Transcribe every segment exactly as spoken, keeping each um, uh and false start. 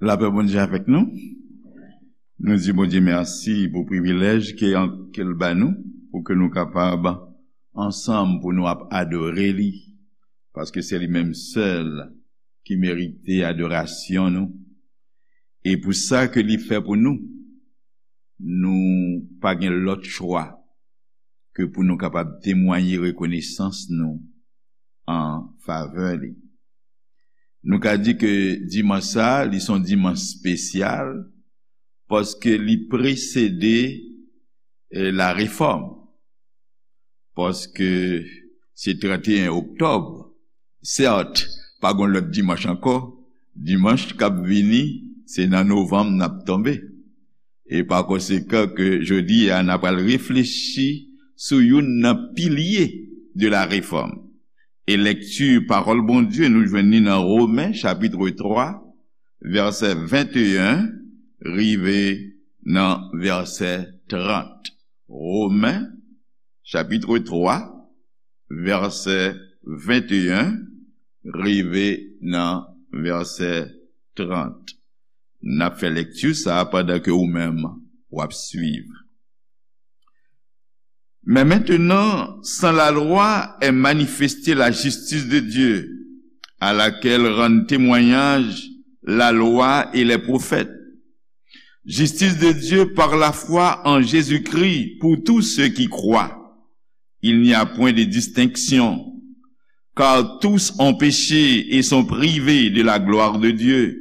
Lapè Bondye avèk nou. Nou di Bondye mèsi pou privilèj ke, ke l ba nou, pou ke nou kapab ansanm pou nou ap adore li, paske se li menm sèl ki merite adorasyon nou. E pou sa ke li fè pou nou, nou pa gen lòt chwa ke pou nou kapab temwaye rekonesans nou an favè li. Nou ka di ke dimanch sa, li se yon dimanch espesyal, paske li presede, eh, la refòm. Paske se trannteyen oktòb, sèt, pa gen lòt dimanch ankò, dimanch k ap vini, se nan novanm n ap tonbe. E pa konsekan ke jodi a, n ap al reflechi sou youn nan pilye de la refòm. E lekti pawòl Bondye nou jwenn li nan Women, chapit twa, vèsè venteyen, rive nan vèsè trant. Women, chapit twa, vèsè venteyen, rive nan vèsè trant. N ap fè lekti sa a pandan ke ou menm w ap swiv. Mais maintenant, sans la loi est manifestée la justice de Dieu, à laquelle rendent témoignage la loi et les prophètes. Justice de Dieu par la foi en Jésus-Christ pour tous ceux qui croient. Il n'y a point de distinction, car tous ont péché et sont privés de la gloire de Dieu.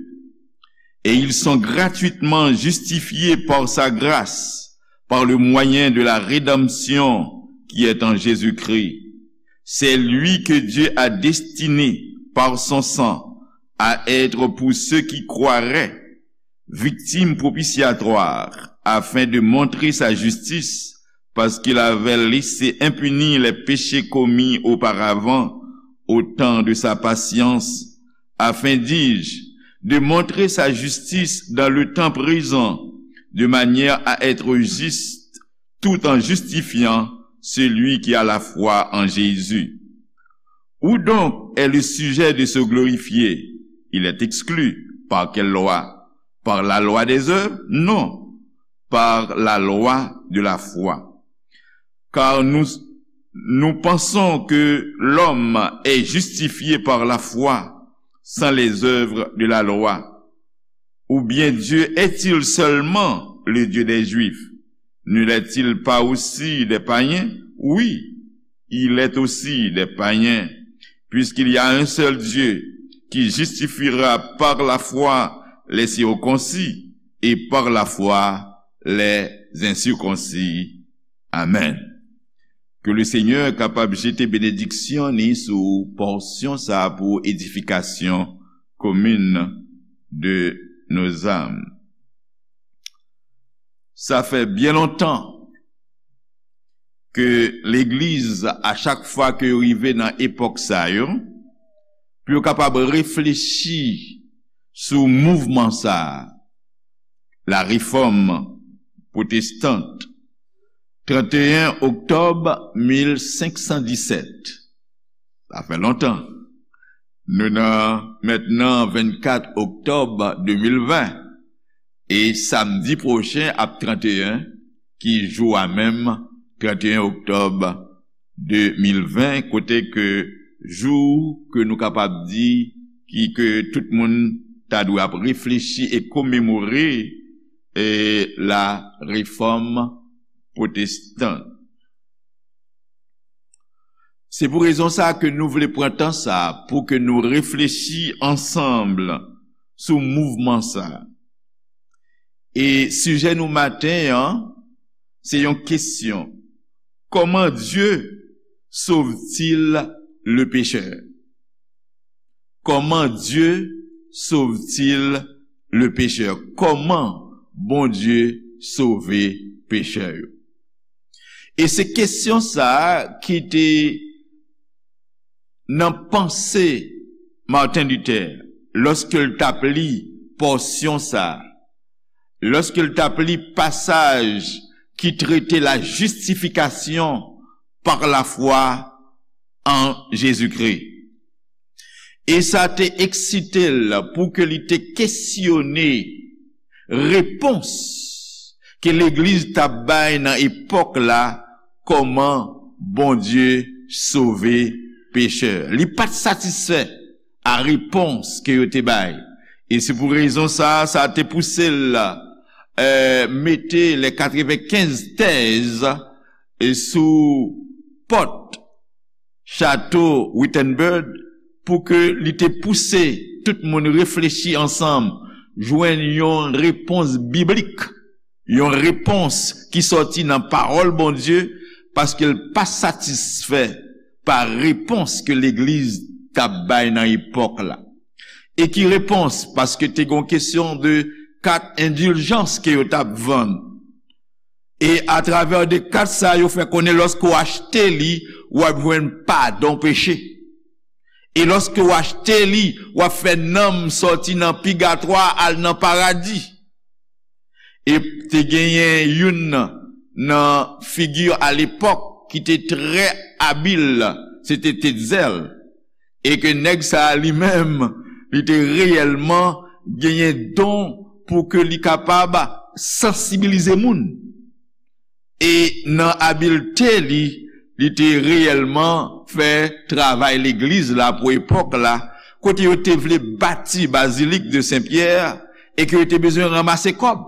Et ils sont gratuitement justifiés par sa grâce, par le moyen de la rédemption qui est en Jésus-Christ. C'est lui que Dieu a destiné par son sang à être pour ceux qui croiraient, victime propitiatoire, afin de montrer sa justice, parce qu'il avait laissé impunis les péchés commis auparavant, au temps de sa patience, afin, dis-je, de montrer sa justice dans le temps présent, de manière à être juste, tout en justifiant celui qui a la foi en Jésus. Où donc est le sujet de se glorifier ? Il est exclu. Par quelle loi ? Par la loi des œuvres ? Non, par la loi de la foi. Car nous, nous pensons que l'homme est justifié par la foi, sans les œuvres de la loi. Ou bien Dieu est-il seulement le Dieu des Juifs ? Ne l'est-il pas aussi des païens ? Oui, il est aussi des païens, puisqu'il y a un seul Dieu qui justifiera par la foi les circoncis et par la foi les incirconcis. Amen. Ke le Senyè kapab jete benediksyon ni sou pòsyon sa a pou edifikasyon komin de nos âmes. Sa fè byen lontan ke legliz, a chak fwa ke yo rive nan epòk sa yo, pou yo kapab reflechi sou mouvman sa a, la réforme protestante, trannteyen oktòb mil senk san disèt. Sa fè lontan. Nou nan mentnan vennkat oktòb de mil ven. E samdi pwochen ap trannteyen, ki jou a menm, trannteyen oktòb de mil ven, kote ke jou ke nou kapab di ki ke tout moun ta dwe ap reflechi e komemore, e la réforme protestante. Se pou rezon sa a ke nou vle pran tan sa a pou ke nou reflechi ansanm sou mouvman sa a. E sijè nou maten an, se yon kesyon. Comment Dieu sauve-t-il le pécheur ? Comment Dieu sauve-t-il le pécheur ? Kòman Bondye sove pechè yo? E se kesyon sa a ki te nan panse Martin Luther lòske l t ap li pòsyon sa a, lòske l t ap li pasaj ki trete la justification par la foi en Jésus-Christ. E sa te eksite l pou ke li te kesyone repons ke legliz t ap bay nan epòk la, kòman Bondye sove pechè. Li pa t satisfè a repons ke yo te bay. E se pou rezon sa a, sa te pouse l, eh, mete les quatre-vingt-quinze tèz, eh, sou pòt chato Wittenberg pou ke li te pouse tout moun reflechi ansanm, jwenn yon repons biblik, yon repons ki sòti nan pawòl Bondye, paske l pa satisfè pa repons ke legliz t ap bay nan epòk la. E ki repons? Paske te gen yon kesyon de kat endiljans ke yo t ap vann. E atravè de kat sa, yo fè konnen lòske w achte li, w ap jwenn padon peche. E lòske w achte li, w ap fè nanm sòti nan pigatwa al nan paradi. E te genyen youn nan, nan figi alepòk ki te trè abil, se te Tetzel. E ke nèg sa a li menm, li te reyèlman genyen don pou ke li kapab sansibilize moun. E nan abilte li, li te reyèlman fè travay legliz la pou epòk la, kote yo te vle bati Bazilik de Sen Pyè e ke yo te bezwen ranmase kòb.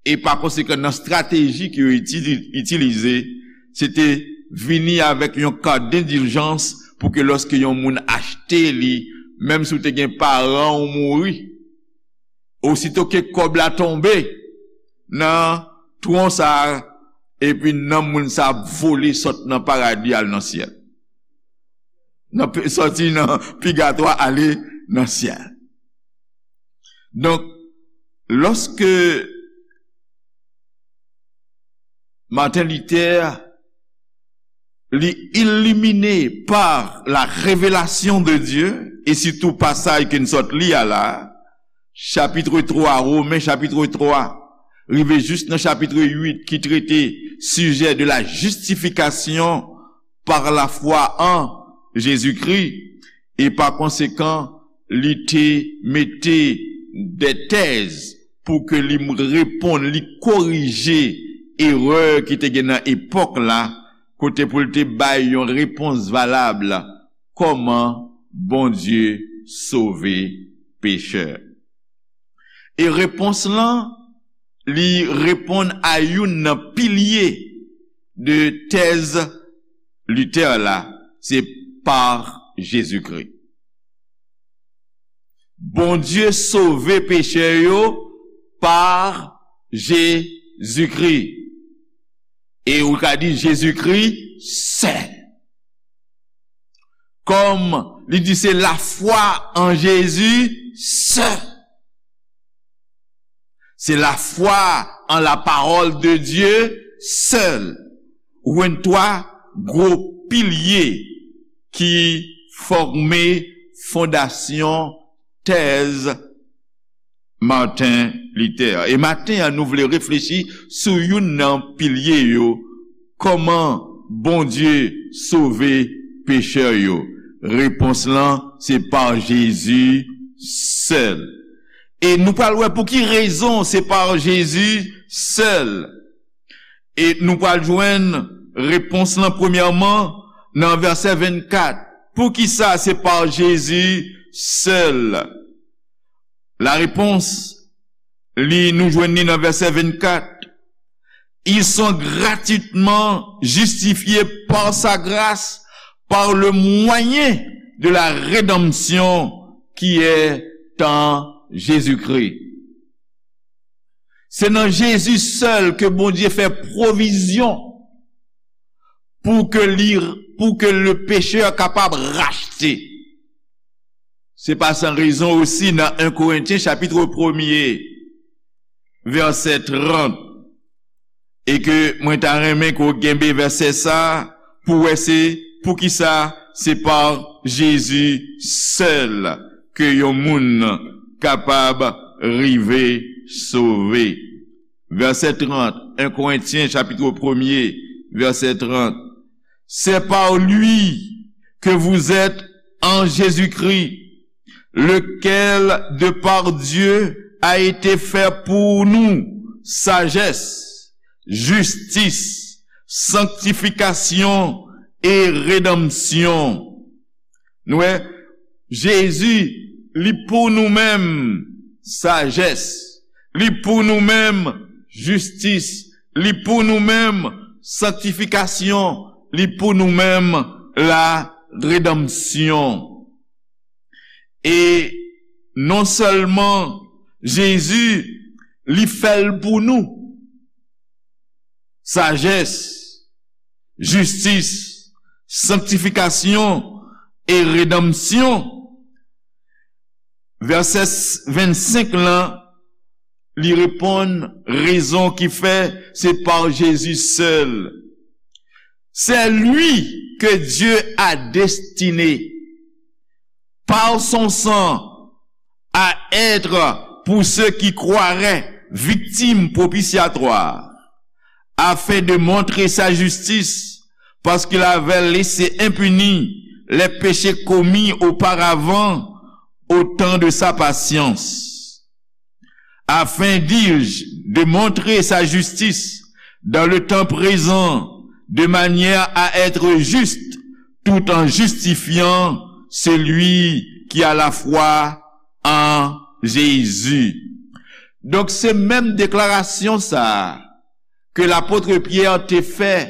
E pa konsekan, nan estrateji ke yo itili-, itilize, se te vini avèk yon kat dendiljans pou ke lòske yon moun achte li, menm si w te gen paran w mouri, osito ke kòb la tonbe nan twon sa a, epi nanm moun sa a ap vole sot nan paradi al nan syèl. Nan pe-, sòti nan pigatwa ale nan syèl. Donk, lòske Martin Luther li ilimine pa la revelasyon de Dye, e sitou pasaj ke n sot li a la, chapit twa, Women chapit twa, rive jis nan chapit uit ki trete sijè de la justification par la foi en Jésus-Christ, e pa konsekan, li te mete de tèz pou ke li reponn, li korije erè ki te gen nan epòk la, kote pou l te bay yon repons valab, kòman Bondye sove pechè. E repons lan, li reponn a youn nan pilye de tèz Luther la, se pa Jezikri. Bondye sove pechè yo pa Jezikri. E ou ka di Jezikri sèl. Kòm li di se lafwa an Jezi sèl. Se lafwa an la parole de Dieu seule. Ou jwenn twa gwo pilye ki fòme fondasyon tèz Martin Luther. E maten an, nou vle reflechi sou youn nan pilye yo, kòman Bondye sove pechè yo. Repons lan, se pa Jezi sèl. E nou pral wè pou ki rezon se pa Jezi sèl. E nou pral jwenn repons lan premyèman nan vèsè vennkat. Poukisa se pa Jezi sèl? La réponse, li nou jwenn li nan vèsè vennkat. Ils sont gratuitement justifiés par sa grâce, par le moyen de la rédemption qui est en Jésus-Christ. Se nan Jezi sèl ke Bondye fè pwovizyon pou ke li, pou ke le pechè kapab rachte. Se pa san rezon osi nan en Korentyen chapit premye, vèsè trant, e ke mwen ta renmen ke w kenbe vèsè sa pou wè se poukisa se pa Jezi sèl ke yon moun kapab rive sove. Vèsè trant, en Korentyen chapit premye, vèsè trant. C'est par lui que vous êtes en Jésus-Christ, lequel de par Dieu a été fait pour nous sagesse, justice, sanctification et rédemption. Nou wè, Jezi, li pou nou menm sajès, li pou nou menm jistis, li pou nou menm sanktifikasyon, li pou nou menm la redanmsyon. E non sèlman Jezi, li fè l pou nou. Sajès, jistis, sanktifikasyon e redanmsyon. Vèsè vennsenk lan, li reponn rezon ki fè se pa Jezi sèl. C'est lui que Dieu a destiné par son sang à être pour ceux qui croiraient victime propitiatoire, afin de montrer sa justice, parce qu'il avait laissé impunis les péchés commis auparavant au temps de sa patience. Afin, dis-je, de montrer sa justice dans le temps présent, de manière à être juste, tout en justifiant celui qui a la foi en Jésus. Donk, se menm deklarasyon sa a ke lapot Pyè te fè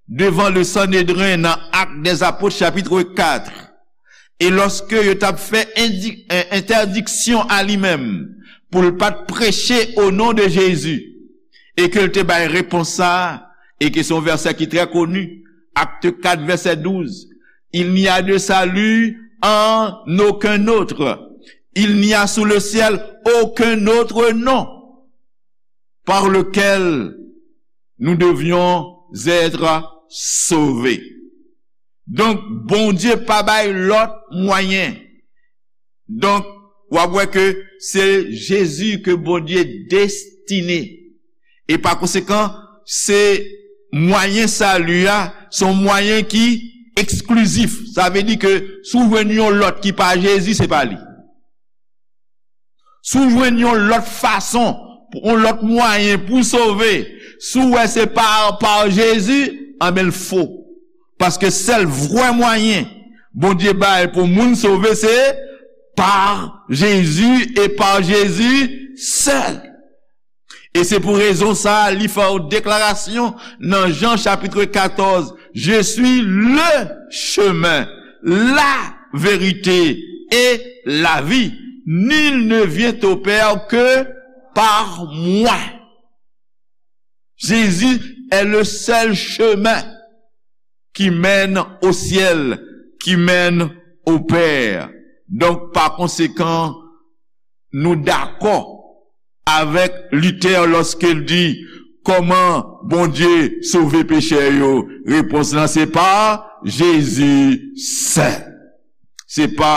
devan le Sanedren nan Actes des Apôtres, chapitre quatre. E lòske yo t ap fè indi-, en-, entèdiksyon a li menm, pou l pa t preche o non de Jezi, e ke l te bay repons sa a, e ke se yon vèsè ki trè koni, Actes quatre, verset douze, Il n'y a de salut en aucun autre. Il n'y a sous le ciel aucun autre nom par lequel nous devions être sauvés. Donk, Bondye pa bay lòt mwayen. Donk, w ap wè ke se Jezi ke Bondye destine. E pa konsekan, se mwayen sali a, se yon mwayen ki eksklizif. Sa vle di ke si w jwenn yon lòt ki pa Jezi, se pa li. Si w jwenn yon lòt fason, yon lòt mwayen pou w sove, si w wè se pa, pa Jezi, anben l fo. Paske sèl vrè mwayen Bondye bay pou moun sove, se pa Jezi e pa Jezi sèl. E se pou rezon sa a, li fè yon deklarasyon nan Jan chapit katòz, Je suis le chemin, la vérité et la vie. Nul ne vient au Père que par moi. Jésus est le seul chemin qui mène au ciel, qui mène au Père. Donk, pa konsekan, nou dakò avèk Luther lòske l di, kòman Bondye sove pechè yo? Repons lan se pa Jezi sèl. Se pa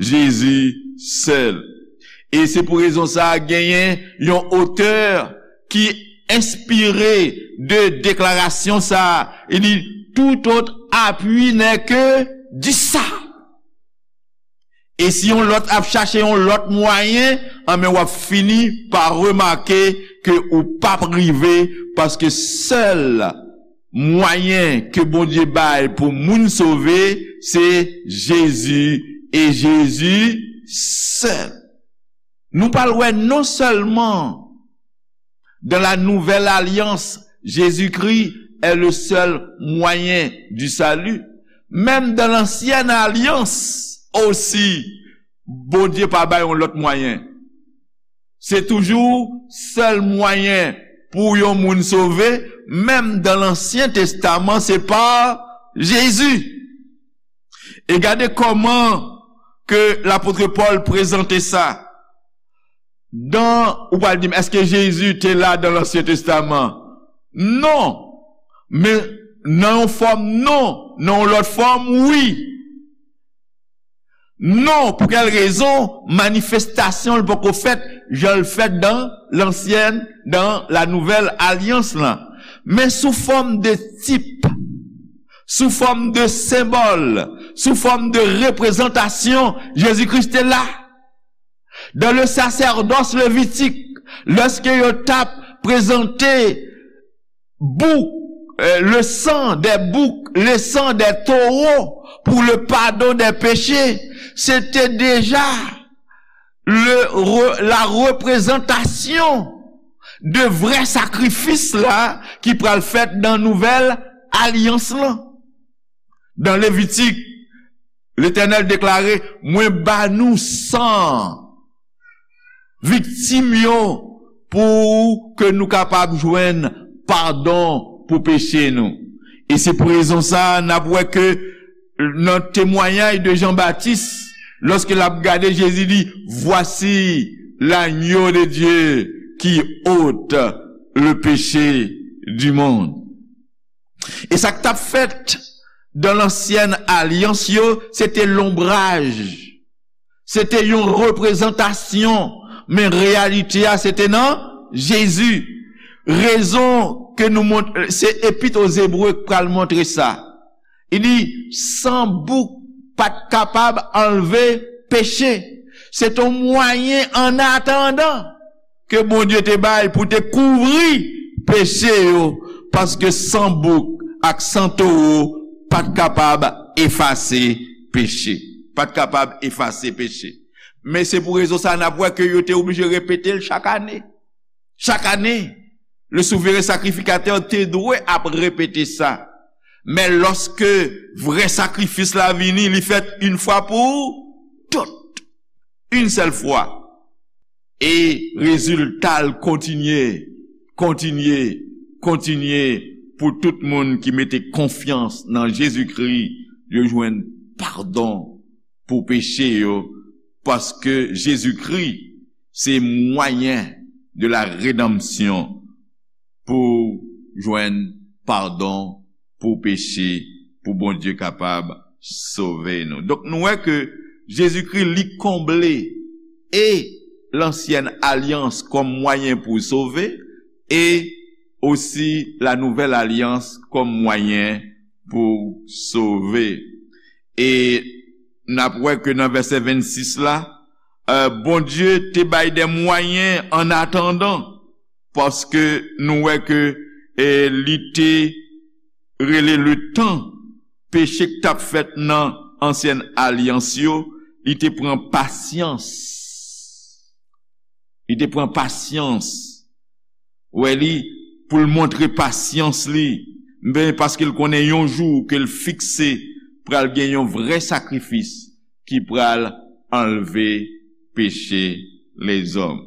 Jezi sèl. E se pou rezon sa a, genyen yon otè ki enspire de deklarasyon sa a. Li di, tout autre appui n'est que du sang. E si yon lòt ap chache yon lòt mwayen, anben w ap fini pa remake ke ou p ap rive, paske sèl mwayen ke Bondye bay pou moun sove, se Jezi e Jezi sèl. Nou pral wè non sèlman dans la nouvelle alliance, Jésus-Christ est le seul moyen du salut. Menm dans l'ancienne alliance osi, Bondye pa bay yon lòt mwayen. Se toujou sèl mwayen pou yon moun sove, menm dans l'Ancien Testament, se pa Jezi. E gade kòman ke lapot Pòl prezante sa. Dan, ou pral di m, èske Jezi te la dan Lansyen Testaman? Non. Men nan yon fòm, non. Nan yon lòt fòm, wi. Non, pou kèl rezon? Manifestasyon l poko fèt jan l fèt dan lansyen, dan la nouvèl alyans lan. Men sou fòm de tip, sou fòm de senbòl, sou fòm de reprezantasyon, Jezi Kris te la. Dans le sacerdoce lévitique, lèske yo t ap prezante bouk, euh, le sang des boucs, le sang des taureaux pour le pardon des péchés, se te deja le, re, la reprezantasyon de vrè sakrifis la ki pral fèt nan nouvèl alyans lan. Dans Lévitique, Letènèl deklare, mwen ba nou san viktim yo pou ke nou kapab jwenn padon pou peche nou. E se pou rezon sa a, n ap wè ke nan temwayaj de Jan Batis, lòske l ap gade Jezi, li, voici l'agneau de Dieu qui ôte le péché du monde. E sa k t ap fèt dan lansyèn alyans yo, se te lonbraj. Se te yon reprezantasyon, men reyalite a, se te nan Jezi. Rezon ke nou mont, se Epit o Zebre k pral montre sa. Li di, san bouk pa t kapab anlve peche. Se te yon mwayen an atandan ke Bondye te bay pou te kouvri peche yo, paske san bouk ak san towo pa t kapab efase peche. Pa t kapab efase peche. Men se pou rezon sa a n ap wè ke yo te oblije repete l chak ane. Chak ane, le souveren sakrifikatè te dwe ap repete sa. Men lòske vrè sakrifis la vini, li fèt yon fwa pou tout. Yon sèl fwa. E rezilta l kontinye, kontinye, kontinye pou tout moun ki mete konfyans nan Jezikri, yo jwenn padon pou peche yo, paske Jezikri se mwayen de la redanmsyon pou jwenn padon pou peche, pou Bondye kapab sove nou. Donk, nou wè ke Jezikri, li konble e lansyèn alyans kòm mwayen pou sove, e osi la nouvèl alyans kòm mwayen pou sove. E n ap wè ke nan vèsè vennsis la, euh, Bondye te bay de mwayen an atandan, paske nou wè ke, eh, li te rele le tan, peche k t ap fèt nan ansyen alyans yo, li te pran pasyans. Li te pran pasyans. Wè li, pou l montre pasyans li, ben, paske l konnen yon jou ke l fikse pral gen yon vrè sakrifis ki pral anlve peche lezòm.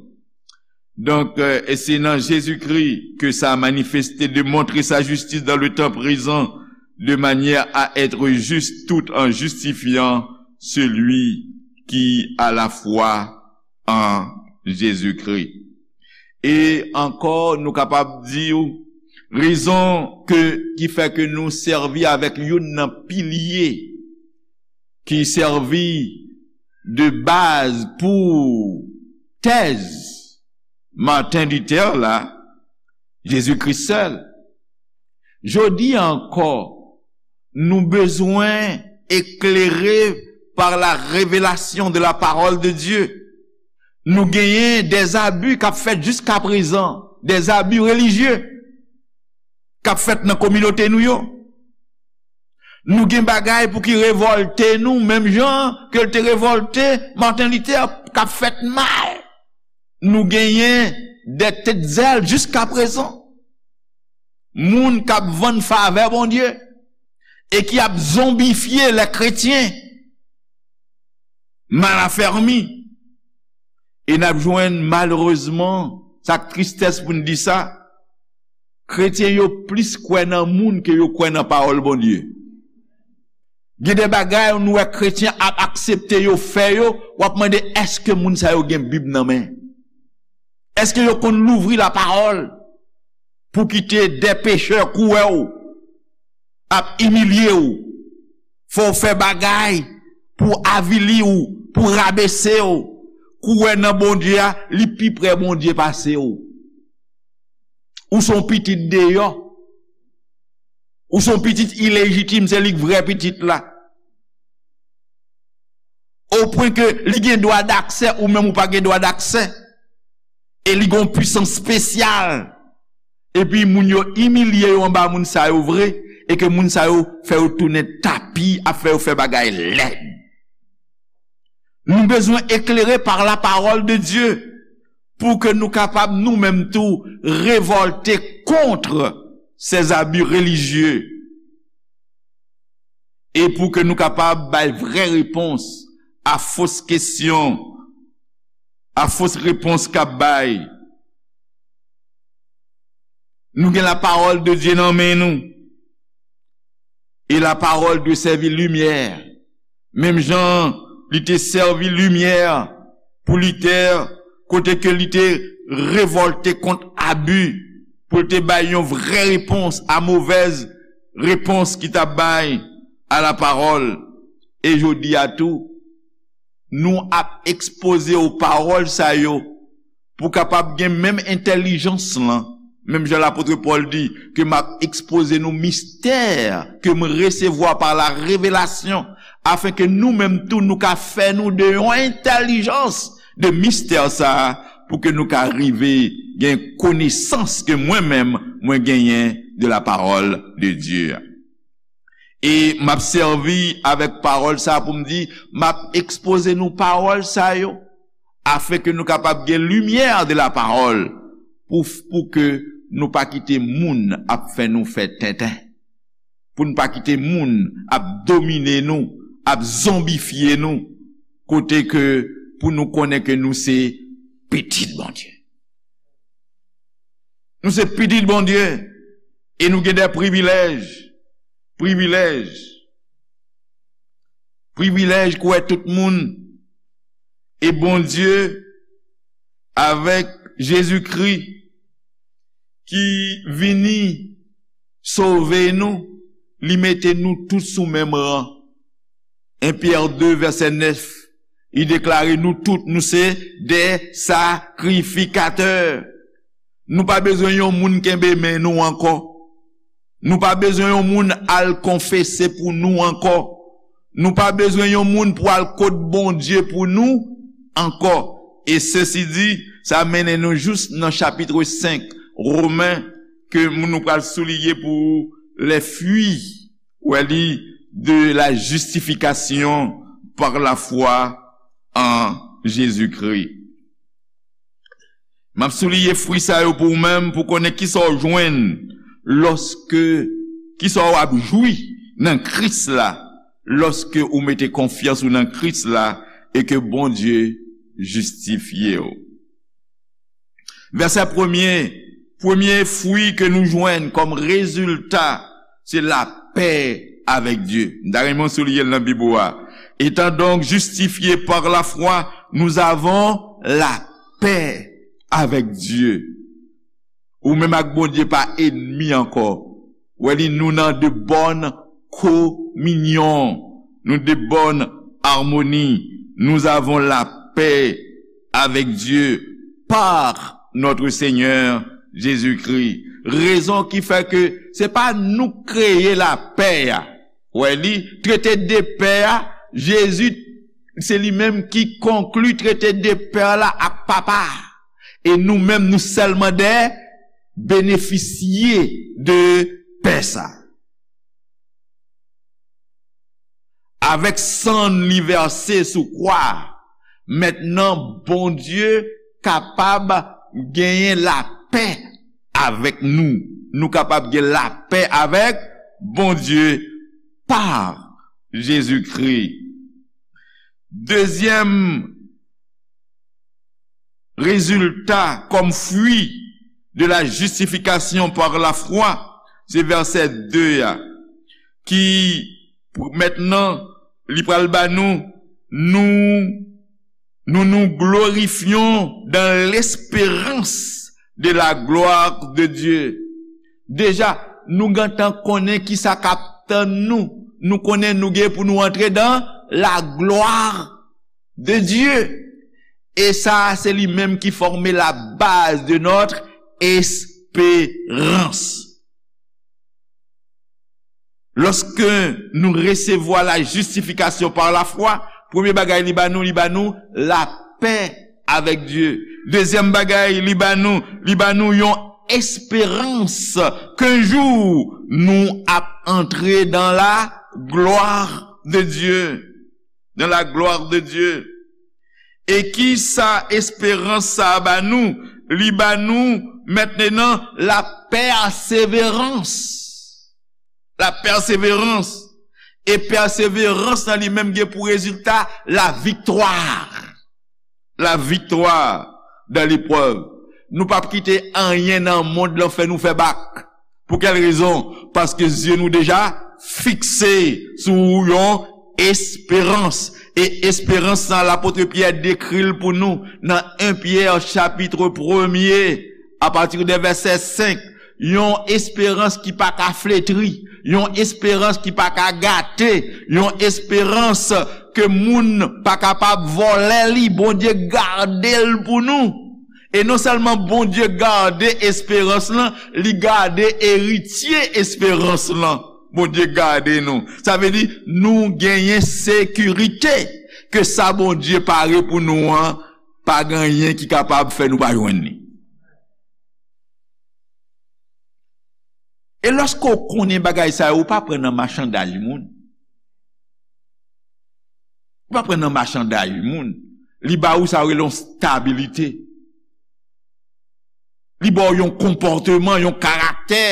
Donk, euh, e se nan Jezikri ke sa a manifeste de montrer sa justice dans le temps présent, de manière à être juste tout en justifiant celui qui a la foi en Jésus-Christ. E ankò, nou kapab di w, rezon ke, ki fè ke nou sèvi avèk youn nan pilye ki sèvi de baz pou tèz Martin Luther la, Jezikri sèl. Jodi a ankò, nou bezwen eklere par la révélation de la parole de Dieu. Nou genyen des abus k ap fèt jiska prezan, des abus religieux k ap fèt nan kominote nou yo. Nou gen bagay pou ki revòlte nou, menm jan ke l te revòlte Martin Luther, k ap fèt mal. Nou genyen de tèt zèl jiska prezan. Moun k ap vann favè Bondye e ki ap zonbifye lè kretyen mal afèmi. E n ap jwenn, malerezman, sa k tristès pou n di sa, kretyen yo plis kwè nan moun ke yo kwè nan pawòl Bondye. Gen de bagay nou wè kretyen ap aksepte yo fè yo, w ap mande, èske moun sa yo gen Bib nan men? Èske yo konn louvri lapawòl pou kite de pechè kouwè w, ap imilye w, fè w fè bagay pou avili w, pou rabese w, kouwè nan Bondye a, li pi pre Bondye pase w. Ou se yon pitit deyò. Ou se yon pitit ilejitim, se li k vrè pitit la. O pwen ke li gen dwa daksè, ou menm ou pa gen dwa daksè. E li gen yon pwisans espesyal. Epi moun yo imilye yo anba moun sa yo vre, e ke moun sa yo fè yo tounen tapi, ap fè yo fè bagay lèd. Nou bezwen eklere par la parole de Dieu pou ke nou kapab nou menm tou revòlte kont ces abus religieux e pou ke nou kapab bay vrè repons a fos kesyon, a fos repons k ap bay. Nou gen la parole de Dieu nan men nou. E la parole dwe sèvi limyè. Menm jan li te sèvi limyè pou Luther, kote ke li te revòlte kont abi, pou l te bay yon vrè repons a movèz repons ki t ap bay a la parole. E jodi a tou, nou ap ekspoze w pawòl sa yo pou kapab gen menm entèlijans lan. Menm jan lapot Pòl di, ke m ap ekspoze nou mistè ke m resevwa pa la revelasyon, afen ke nou menm tou nou ka fè nou de yon entèlijans de mistè sa a, pou ke nou ka rive gen konesans ke mwen menm mwen genyen de la parole de Dieu. E m ap sèvi avèk pawòl sa a pou m di, m ap ekspoze nou pawòl sa yo, afen ke nou kapab gen limyè de la parole, pou, pou ke nou pa kite moun ap fè nou fè tenten, pou n pa kite moun ap domine nou, ap zonbifye nou, kote ke pou nou konnen ke nou se pitit Bondye. Nou se pitit Bondye e nou gen de privilèj, privilèj, privilèj kwè tout moun e Bondye avèk Jezikri ki vini sove nou, li mete nou tout sou menm ran. En Pyè de vèsè nèf, li deklare nou tout, nou se de sakrifikatè. Nou pa bezwen yon moun kenbe men nou ankò. Nou pa bezwen yon moun al konfese pou nou ankò. Nou pa bezwen yon moun pou al kot Bondye pou nou ankò. E sesi di, sa mennen nou jous nan chapit senk Women, ke nou pral souliye pou les fruits, wè li, de la justification par la foi en Jésus-Christ. M ap souliye fwi sa yo pou ou menm, pou konnen kisa w jwenn lòske, kisa w ap jwi nan Kris la, lòske ou mete konfyans ou nan Kris la e ke Bondye jistifye w. Vèsè premye, premye fwi ke nou jwenn kòm rezilta, se lapè avèk Dye. M ta renmen w souliye l nan Bib ou a. Étant donc justifiés par la foi, nous avons la paix avec Dieu. Ou menm ak Bondye pa enmi ankò. Wè li, nou nan de bòn kominyon, nou de bòn amoni. Nous avons la paix avec Dieu par notre Seigneur Jésus-Christ. Rezon ki fè ke se pa nou k kreye lapè a. Wè li, trete de pè a, Jezi, se li menm ki konkli trete de pè la ak Papa a. E nou menm, nou sèlman de benefisye de pè sa. Avèk san li vèse sou kwa a, mentnan Bondye kapab genyen lapè avèk nou. Nou kapab gen lapè avèk Bondye pa Jezikri. Dezyèm rezilta kòm fwi de la justification par la foi, se vèsè de a, ki, mentnan, li pral ba nou, nous, nous nous glorifions dans l'espérance de la gloire de Dieu. Deja, nou gentan konnen kisa k ap tann nou. Nou konnen nou gen pou nou antre dans la gloire de Dieu. E sa, se li menm ki fòme la base de notre espérance. Lòske nou resevwa la jistifikasyon pa lafwa, premye bagay li ba nou, li ba nou lapè avèk Dye. Dezyèm bagay li ba nou, li ba nou yon esperans ke yon jou nou ap antre dans la gloire de Dieu. Dans la gloire de Dieu. E ki sa esperans sa a ba nou? Li ba nou mentnan la pèseverans. La pèseverans. E pèseverans nan li menm gen pou rezilta la viktwa. La viktwa dan leprèv. Nou p ap kite anyen nan mond lan fè nou fè bak. Pou kèl rezon? Paske zye nou deja fikse sou yon esperans. E esperans sa, lapot Pyè dekri l pou nou nan en Pyè chapit premye, apati de vèsè senk. Yon esperans ki pa ka fletri, yon esperans ki pa ka gate, yon esperans ke moun pa kapab vòlè li, Bondye gade l pou nou. E non sèlman Bondye gade esperans lan, li gade eritye esperans lan. Bondye gade nou. Sa vle di, nou genyen sekirite ke sa Bondye pare pou nou an, pa gen anyen ki kapab fè nou pa jwenn li. E lòske w konnen bagay sa yo, ou pa pran nan machanday moun. Ou pa pran nan machanday moun. Li ba ou sa yo rele yon stabilite. Li ba w yon konpòteman, yon karaktè.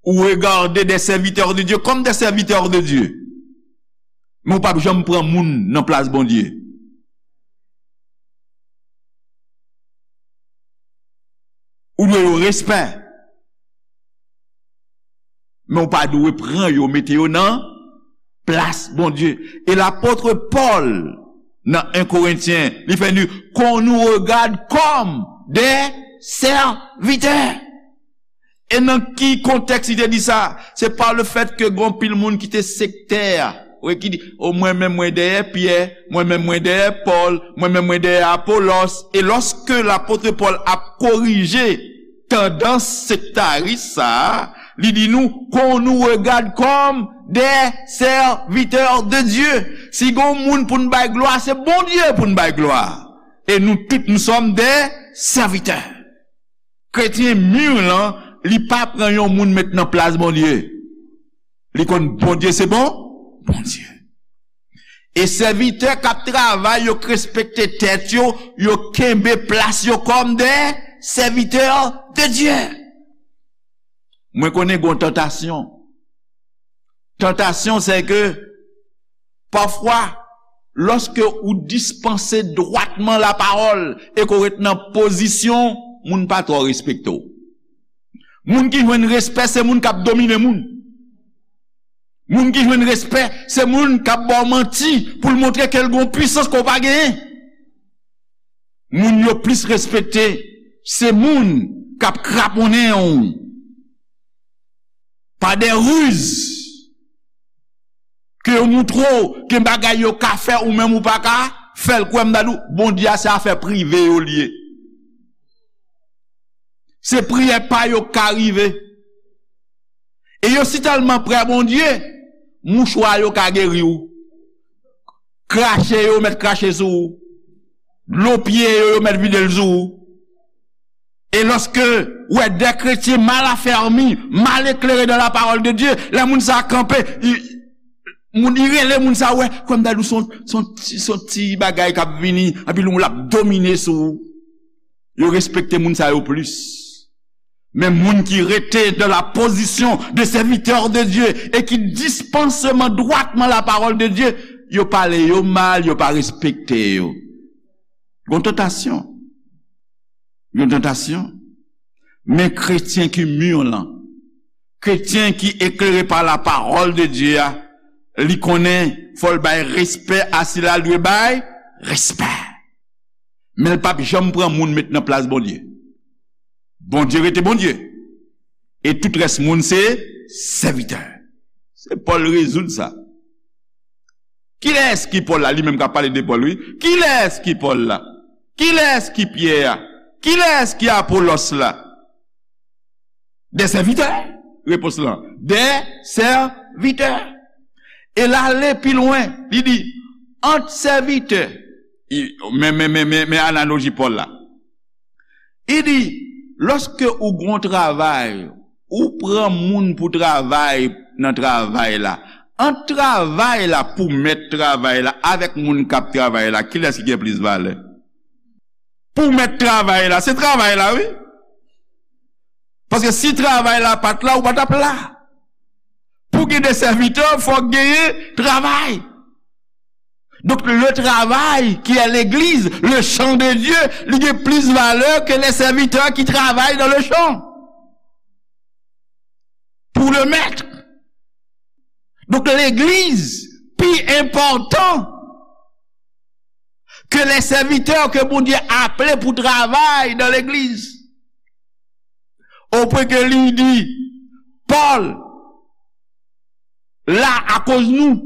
Ou regade des serviteurs de Dieu comme des serviteurs de Dieu. Men ou p ap janm pran moun nan plas Bondye. Ou dwe yo respè. Men ou pa dwe pran yo, mete yo nan plas Bondye. E lapot Pòl, nan en Korentyen, li fè nou, qu'on nous regarde comme des serviteurs. E nan ki kontèks li te di sa? Se pa le fèt ke gon pil moun ki te sektè, wi, ki di, o, mwen menm mwen dèyè Pyè, mwen menm mwen dèyè Pòl, mwen menm mwen dèyè Apolòs. E lòske lapot Pòl ap korije tandans sektaris sa a, li di nou, qu'on nous regarde comme des serviteurs de Dieu. Si gon moun pou n bay glwa, se Bondye pou n bay glwa. E nou tout, nous sommes des serviteurs. Kretyen mi lan, li pa pran yon moun met nan plas Bondye. Li konn Bondye se bon, Bondye. E sèvitè k ap travay, yo k respekte tèt yo, yo kenbe plas yo kòm des serviteurs de Dieu. Mwen konnen gon tantasyon. Tantasyon, se ke pafwa, lòske ou dispanse dwatman lapawòl e ke w ret nan pozisyon, moun pa twò respekte w. Moun ki jwenn respè, se moun k ap domine moun. Moun ki jwenn respè, se moun k ap ba w manti pou l montre ke l gon pwisans ke w pa genyen. Moun yo plis respekte, se moun k ap kraponnen w pa de riz, ke yo moutre w gen bagay yo ka fè ou menm ou pa ka fè l. Kwè m ta di w, Bondye a se afè prive yo l ye. Se priyè pa yo k ka rive. E yo si tèlman prè Bondye, mouchwa yo ka geri w. Krache yo, yo mèt krache sou ou. Dlo pye yo, yo mèt vide l sou ou. E lòske w wè de kretyen mal afèmi, mal eklere dans la parole de Dieu, lè moun sa a kanpe, i, moun, i rele moun sa a, wè, kwè m ta di w, se yon, se yon ti, se yon ti bagay k ap vini, anpi l ap domine sou ou. Yo respekte moun sa yo plis. Men moun ki rete dans la position de serviteur de Dieu e ki dispanse dwatman la parole de Dieu, yo pale yo mal, yo pa respekte yo. Gon tantasyon. Gon tantasyon. Men kretyen ki mi lan, kretyen ki eklere pa la parole de Dieu a, li konnen fò l bay respè a sila l dwe bay respè. Men l p ap janm pran moun met nan plas Bondye. Bondye rete Bondye. E tout rès moun se sèvitè. Se Pòl rezoud sa. Kilès ki Pòl la? Li menm k ap pale de Pòl, wi. Kilès ki Pòl la? Kilès ki Pyè a? Kilès ki Apolòs la? Des serviteurs, repons lan. Des serviteurs. E l ale pi lwen, li di, ant sèvitè, men, men, men, men, men analoji Pòl la. Li di, lòske ou gon travay, ou pran moun pou travay nan travay la, ant travay la pou mèt travay la avèk moun k ap travay la, kilès ki gen plis valè? Pou mèt travay la, se travay la, wi. Paske si travay la pa t la, ou pa t ap la. Pou gen de sèvitè, fòk genyen travay. Donk, le travail qui est l'église, le champ de Dieu, li gen plis valè ke les serviteurs qui travaillent dans le champ. Pour le maître. Donk, legliz pi enpòtan ke les serviteurs ke Bondye aple pou travay nan legliz. Opwen ke li di, Pòl la akoz nou,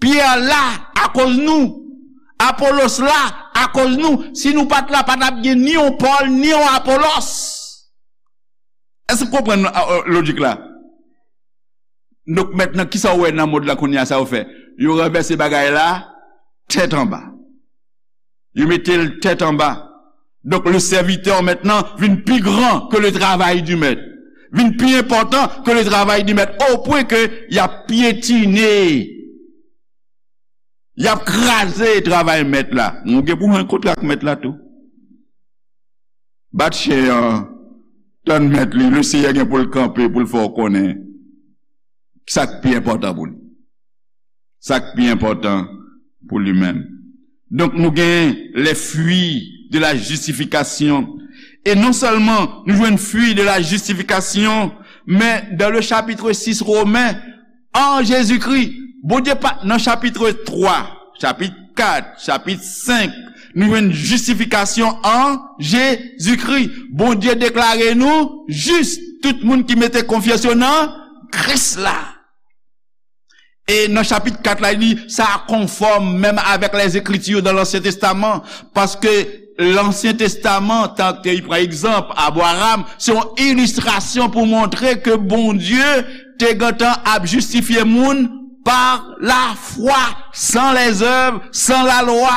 Pyè la akoz nou, Apolos la akoz nou. Si nou pa t la, pa t ap gen ni yon Pòl, ni yon Apolos. Èske w konprann, a, a, lojik la? Donk, mentnan, kisa w wè nan mond la kounye a, sa yo fè? Yo ranvèse bagay la tèt anba. Yo mete l tèt anba. Donk, le serviteur maintenant vin pi gran ke le travay di mèt. Vin pi enpòtan ke le travay di mèt. O pwen ke y ap pyetine, y ap kraze travay mèt la. Nou gen pou jwenn kontra ak mèt la tou. Bat chen an, tann mèt li, le Seyè gen pou l kanpe, pou l fè w konnen sa k pi enpòtan pou li. Sa k pi enpòtan pou li menm. Donk, nou gen les fruits de la justification. E non sèlman nou jwenn fruit de la justification, men dans le chapitre six Romains, en Jésus-Christ. Bondye pa, nan chapit twa, chapit kat, chapit senk, nou jwenn jistifikasyon an Jezikri. Bondye deklare nou jis, tout moun ki mete konfyans yo nan Kris la. E nan chapit kat la, li di, sa konfòm menm avèk lèzekriti dan Lansyen Testaman, paske Lansyen Testaman, tank li pran egzanp Abraram, se yon ilistrasyon pou montre ke Bondye te gentan ap jistifye moun pa lafwa, san lèzèv, san lalwa,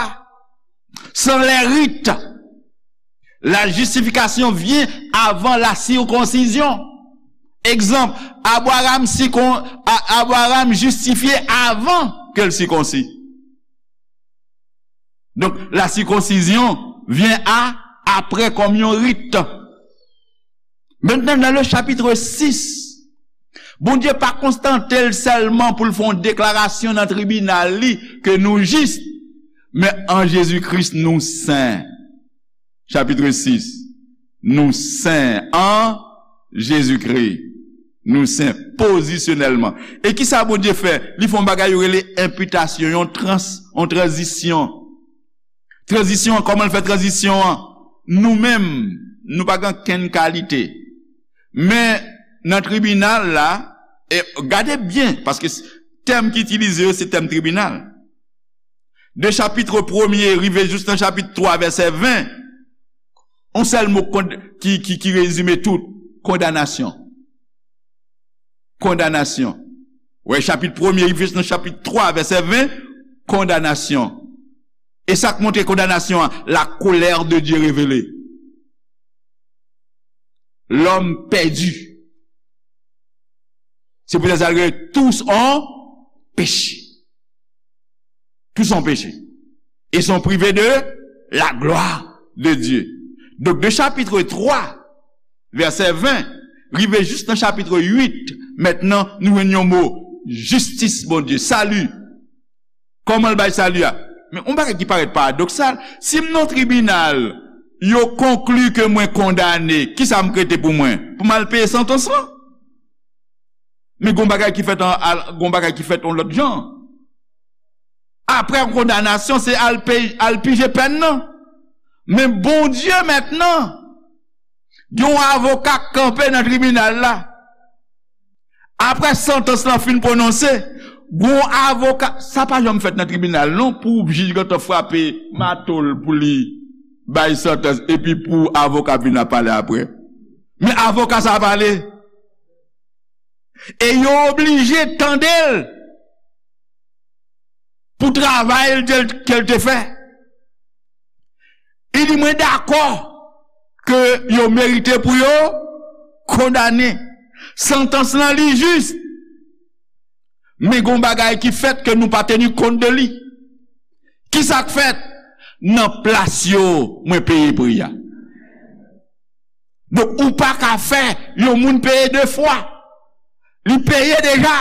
san lè rit. La justification vient avant la circoncision. Egzanp, Abraram sikon-, A-, Abraram jistifye avan ke l sikonsi. Donk, la circoncision vient à, après kòm yon rit. Mentnan, nan le chapitre six, Bondye pa kontante l sèlman pou l fè yon deklarasyon nan tribinal li ke nou jis, men an Jezi Kris nou sen. Chapitre six, nou sen an Jezi Kris. Nou sen pozisyonèlman. E kisa Bondye fè? Li fè yon bagay yo rele enpitasyon, yon trans-, yon tranzisyon. Tranzisyon an, kòman l fè tranzisyon an? Nou menm, nou pa gen kenn kalite. Men, nan tribinal la, e gade byen, paske s-, tèm ki itilize yo, se tèm tribinal. De chapit premye rive jis nan chapit twa, vèsè ven, yon sèl mo kond-, ki, ki, ki rezime tout, kondanasyon. Kondanasyon. Wè, chapit premye rive jis nan chapit twa, vèsè ven, kondanasyon. E sa k montre kondanasyon an, la colère de Dieu révélée. L'homme perdu. Se poutèt sa l rele tous ont péché. Tous ont péché. Et sont privés de la gloire de Dieu. Donk, de chapit twa, vèsè ven, rive jis nan chapit uit, mentnan, nou jwenn yon mo, jistis Bondye, sali. Kòman l bay sali a? Men, yon bagay ki parèt paradoksal, si m nan tribinal, yo konkli ke mwen kondane, kisa m k rete pou mwen? Pou m al peye santans lan? Men gon bagay ki fèt an, al, gon bagay ki fèt yon lòt jan. Aprè kondanasyon, se al peye, al pije pèn nan. Men Bondye mentnan, gen yon avoka k kanpe nan tribinal la. Aprè santans lan fin pwononse, gon avoka, sa pa janm fèt nan tribinal non, pou jij gentan frape mato l pou li bay santans, epi pou avoka vin ap pale apre. Men avoka sa a pale. E yo oblije tande l pou travay l ke l te fè. Li di, mwen dakò ke yo merite pou yo kondane. Santans lan li jis. Men gon bagay ki fèt ke nou pa teni kont de li. Ki sa k fèt? Nan plas yo, mwen peye pri a. Donk, ou pa ka fè yon moun peye de fwa. Li peye deja.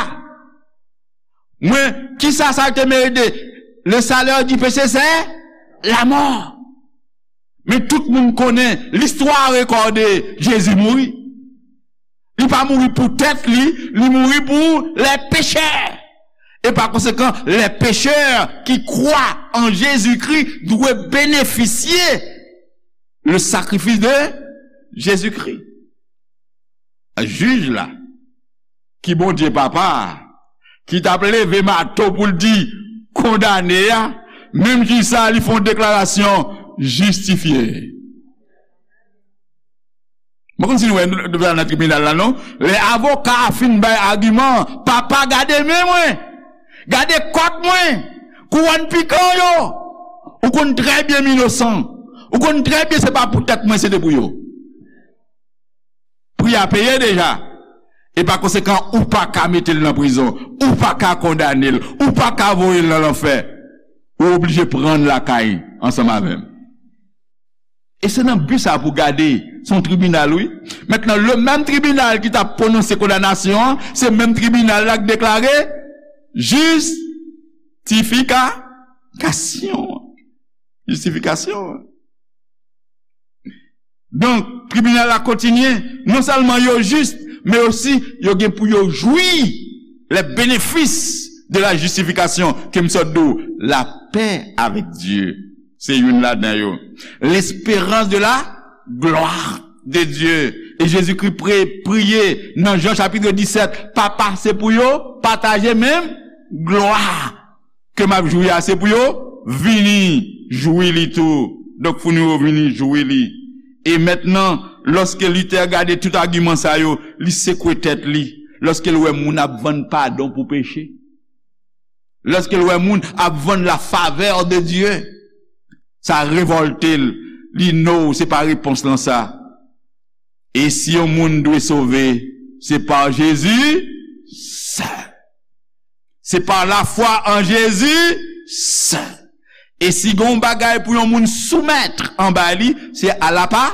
Mwen, kisa sa te merite? Le salaire du péché, c'est la mort. Men tout moun konnen, listwa rekòde, Jezi mouri. Li pa mouri pou tèt li, li mouri pou les pécheurs. Et par conséquent, les pécheurs qui croient en Jésus-Christ doivent bénéficier le sacrifice de Jésus-Christ. Jij la, ki Bondye Papa a, ki t ap leve mato pou l di, kondane a, menm jij sa a, li fè yon deklarasyon, jistifye. Mwen konn si nou wè nou, nou nan tribinal la, non? Lè avoka a fin bay agiman, papa, gade men mwen, gade kòt mwen, kouwòn pikan yo, ou konn trè byen m inosan, ou konn trè byen se pa pou tèt mwen, se te pou yo. Pri a peye deja. E pa konsekan, ou pa ka mete l nan prizon, ou pa ka kondane l, ou pa ka voye l nan lanfè. Ou oblije pran l lakay ansanm avè m. E se nan bi sa pou gade, se yon tribinal, wi. Mentnan, le menm tribinal ki t ap pwononse kondanasyon an, se menm tribinal la k deklare jistifika-, kasyon. Jistifikasyon. Donk, tribinal la kontinye, non sèlman yo jis, men osi yo gen pou yo jwi les bénéfices de la justification, ke m sot di w, la paix avec Dieu. Se youn ladan yo. L'espérance de la gloire de Dieu. E Jezikri pre-, priye nan Jan chapit disèt, Papa, se pou yo pataje menm glwa ke m ap jwi a, se pou yo vini jwi li tou. Donk, fò nou yo vini jwi li. E mentnan, lòske Luther gade tout agiman sa yo, li sekwe tèt li. Lòske l wè moun ap vann padon pou peche, lòske l wè moun ap vann la faveur de Dieu, sa revòlte l. Li no, se pa repons lan sa. E si yon moun dwe sove, se pa Jezi sèl. Se pa lafwa an Jezi sèl. E si gen yon bagay pou yon moun soumèt anba li, se a la pa-,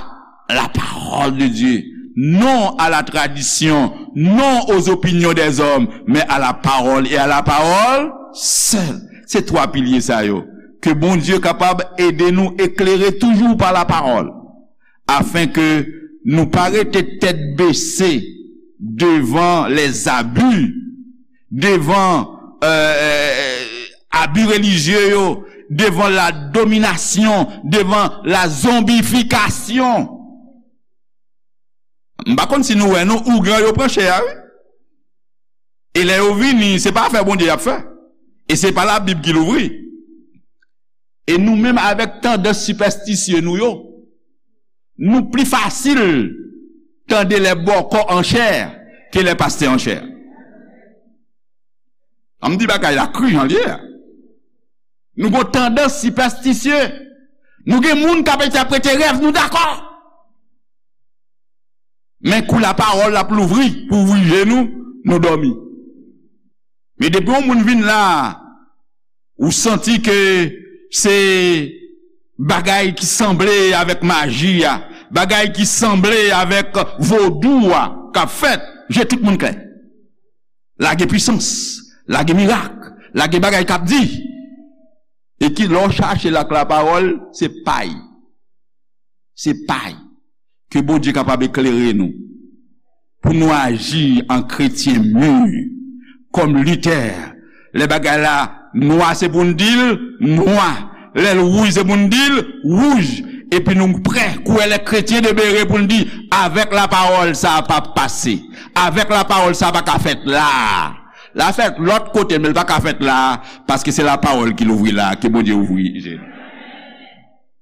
la parole de Dieu. Non à la tradition, non aux opinions des hommes, mais à la parole et à la parole seule. Se twa pilye sa yo. Ke Bondye kapab ede nou eklere toujou pa lapawòl, afin ke nou pa rete tèt bese devan les abus, devan, euh, euh, abi relijye yo, devan la dominasyon, devan la zonbifikasyon. M pa konn si nou wè, non, ougan yo pran chè a, wi. E lè yo vini, se pa afè Bondye y ap fè. E se pa Labib ki louvri. E nou menm, avèk tandans sipèstisye nou yo, nou pli fasil tande les bòkò an chè ke les pastè an chè. An m di bagay la kri jan l ye a. Nou gon tandans sipèstisye. Nou gen moun k ap entèprete rèv, nou dakò. Men kou lapawòl ap louvri pou ouvri je nou, nou dòmi. Men depi yon moun vin la, ou santi ke se bagay ki sanble avèk maji a, bagay ki sanble avèk vodou a k ap fèt, je tout moun klè. Lage pwisans, lage mirak, lage bagay k ap di. E ki lè w chache l ak lapawòl, se pay. Se pay. Ke Bondye kapab eklere nou. Pou nou aji an kretyen mi. Kòm Luther. Lè bagay la nwa, se pou n di l nwa. Lè l wouj, se pou n di l wouj. Epi nou prè, kou les chrétiens de Béré, pou n di, avèk lapawòl, sa p ap pase. Avèk lapawòl, sa pa ka fèt la. L a fèt lòt kote, men l pa ka fèt la, paske se lapawòl ki louvri la, ke Bondye ouvri je nou.